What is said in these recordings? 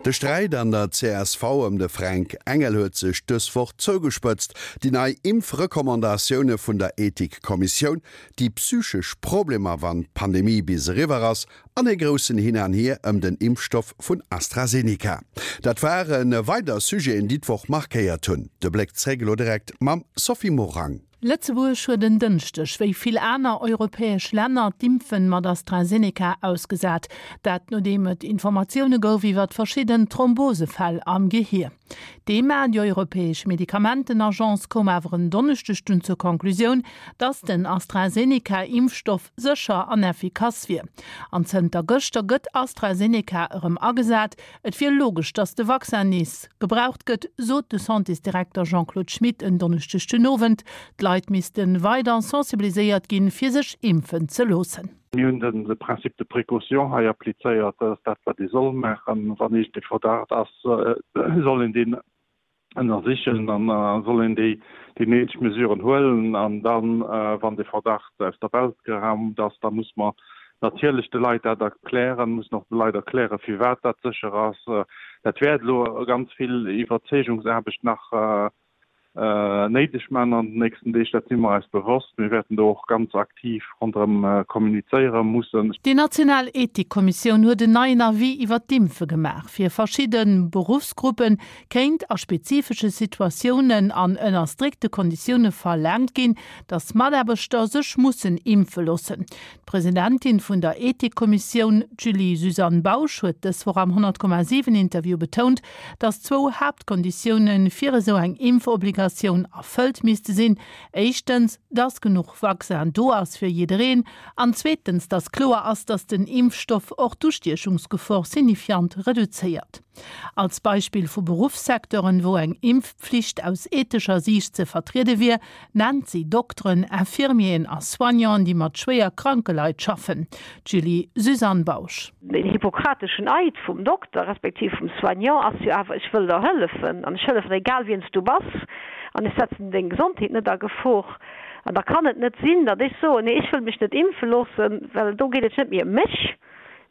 De Sträit an der csv ëm de Fränk Engel huet sech dës Woch zougespëtzt. Déi nei Impfrecommandatioune vun der Ethikkommissioun, déi psychesch Problemer wann d'Pandemie bis eriwwer ass an ee groussen Hin an Hier ëm den Impfstoff vun AstraZeneca. Dat ware weider Sujeten, déi d'Woch markéiert hunn. De Bléck zréck elo direkt mam Sophie Morang. Lëtzebuerg huet en Dënschdeg, wéi vill aner europäesch Länner, d'Impfen mat AstraZeneca ausgesat. Dat nodeem et Informatioune gouf iwwert verschidden Thrombosefäll am Gehier. D'EMA, déi europäesch Medikamentenagence, koum awer en Donneschdeg dunn zur Conclusioun, datt den AstraZeneca-Impfstoff sécher an effikass wier. An zënter gëschter gëtt AstraZeneca erëm agesat. Et wier logesch, datt de Vaccin nees gebraucht gëtt, sot de Santésdirekter Jean-Claude Schmit en Donneschdeg den Owend. D'Leit misste weider sensibiliséiert ginn, fir sech impfen ze loossen. Mir hunn de Principe de précaution hei applizéiert. Dat ass dat, wat ee soll maachen. Wann iergendee Verdacht ass, soll een deen ënnersichen an da soll een déi déi néideg Mesuren huelen an dann, wann dee Verdacht aus der Welt geraumt ass, da muss mer natierlech de Leit dat erklären, mussen och de Leit erklären, firwat dat sécher ass. Dat wäert elo ganz vill Iwwerzeegungsaarbecht nach néideg maachen an den nächsten Deeg, dat si mer eis bewosst. Mir wäerten do och ganz aktiv ronderëm kommunizéiere mussen. Déi national Ethikkommissioun huet en neien Avis iwwer d'Impfe gemaach. Fir verschidde Beruffsgruppe kéint a spezifesche Situatiounen an ënner strikte Konditioune verlaangt ginn, datt Mataarbechter sech mussen impfe loossen. D'Presidentin vun der Ethikkommissioun, d'Julie-Suzanne Bausch, huet dës Woch am 100,7 Interview betount, datt zwou Haaptkonditioune fir esou eng Impfobligatioun erfëllt misste sinn, éischtens, datt genuch Vaccin do ass fir jiddereen, an zweetens, datt kloer ass, datt den Impfstoff och d'Ustiechungsgefor signifiant reduzéiert. Als Beispill vu Beruffssecteuren, wou eng Impfpflicht aus ethescher Siicht ze vertriede wier, nennt si Dokteren, Infirmieren a Soignanten, déi mat schwéier kranke Leit schaffen. D'Julie-Suzanne Bausch. Den hippokrateschen Eid vum Dokter respektiv vum Soignant ass jo awer, ech wëll der hëllefen an ech hëllefen der egal wien s du bass an ech setzen deng Gesondheet net a Gefor. An da kann et net sinn, datt ech soen, nee ech wëll mech net impfe loossen, well do geet et net méi ëm mech,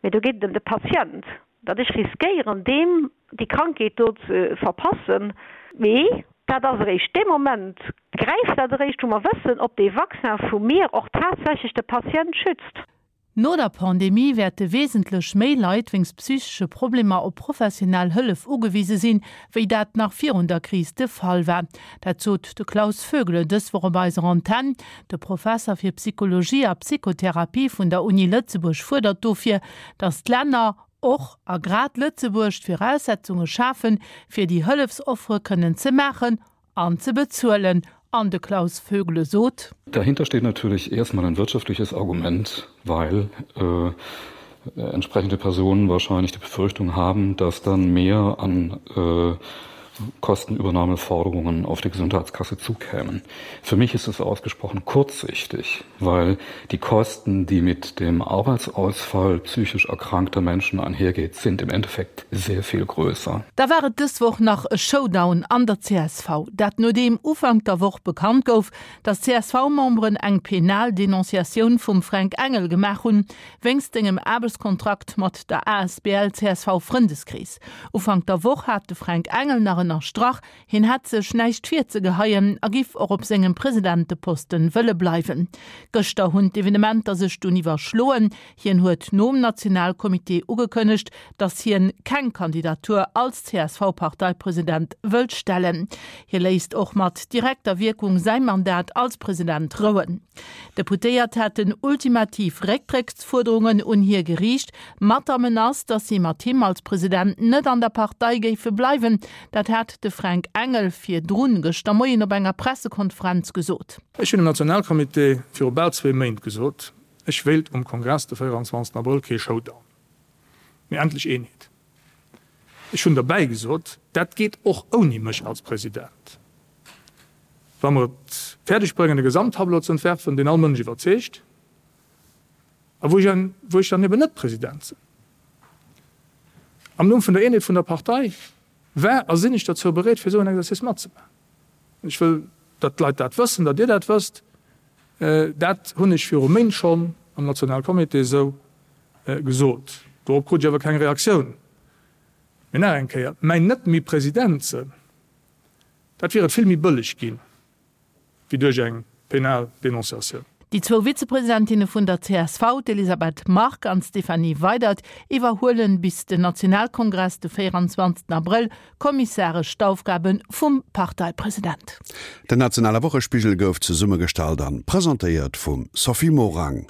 mee do geet et ëm de Patient. Datt ech riskéieren, deem déi Krankheet do ze verpassen. Mee dat ass eréischt dee Moment, gräift dat eréischt, wou mer wëssen, ob dee Vaccin vu mir och tatsächlech de Patient schützt. No der Pandemie wäerte wesentlech méi Leit wéinst psychesche Problemer op professionell Hëllef ugewise sinn, wéi dat nach virun der Kris de Fall war. Dat sot de Klaus Vögele dës Woch op eiser Antenn. De Professer fir Psychologie a Psychotherapie vun der Uni Lëtzebuerg fuerdert dofir, datt d'Länner, och a grad Lëtzebuerg, d'Viraussetzunge schafen, fir déi Hëllefsoffere kënnen ze maachen an ze bezuelen. An de Klaus Vögele sot. Dahinter steht natürlich erstmal ein wirtschaftliches Argument, weil äh, entsprechende Personen wahrscheinlich die Befürchtung haben, dass dann mehr an äh, Kostenübernahmeforderungen auf die Gesundheitskasse zukämen. Für mich ist es ausgesprochen kurzsichtig, weil die Kosten, die mit dem Arbeitsausfall psychisch erkrankter Menschen einhergeht, sind im Endeffekt sehr viel größer. Da war et dës Woch nach e Showdown an der csv. Dat nodeem Ufank der Woch bekannt gouf, datt d'CSV-Memberen eng penal Denonciatioun vum Fränk Engel gemaach hunn, wéinst sengem Aarbechtskontrakt mat der asbl csv Frëndeskrees. Ufank der Woch hat de Fränk Engel nach ënnerstrach, hien hätt sech näischt virzegeheien a giff och op sengem Presidenteposten wëlle bleiwen. Gëschter hunn d'Evenementer sech dunn iwwerschloen. Hien huet nom Nationalcomité ugekënnegt, datt hien keng Kandidatur als CSV-Parteipresident wëllt stellen. Hie léisst och mat direkter Wierkung säi Mandat als President rouen. D'Deputéiert hätten ultimativ Récktrécksfuerderungen un hie geriicht, mat der Menace, datt si mat him als President net an der Partei géife bleiwen. Dat hat de Fränk Engel virdrun gëschter Moien op enger Pressekonferenz gesot. Ech hunn dem Nationalcomité viru bal zwee Méint gesot, ech wéilt um Kongress de 24 Abrëll kee Showdown, mee endlech Eenheet. Ech hunn derbäi gesot, dat geet och ouni mech als President. Wa mer et fäerdeg bréngen e Gesamttableau ze entwerfen, deen all Mënsch iwwerzeegt a wou ech wou ech dann eben net President sinn. Am Numm vun der Eenheet vun der Partei war a sinn ech dozou bereet, fir esou en Exercice matzemaachen. Ech wëll, datt d'Leit dat wëssen, datt Dir dat wësst. Dat hunn ech viru Méint schonn am Nationalcomité esou gesot. Dorop krut ech awer keng Reaktioun. Mee nach eng Kéier, mäin net méi President sënn, dat wier et vill méi bëlleg ginn, wéi duerch eng penal Denonciatioun. Déi zwou Vizepresidentinne vun der csv, d'Elisabeth Margue an d'Stéphanie Weydert, iwwerhuelen bis den Nationalkongress de 24 Abrëll kommissaresch d'Aufgabe vum Parteipresident. Den nationale Wochespigel gouf zesummegestallt an presentéiert vum Sophie Morang.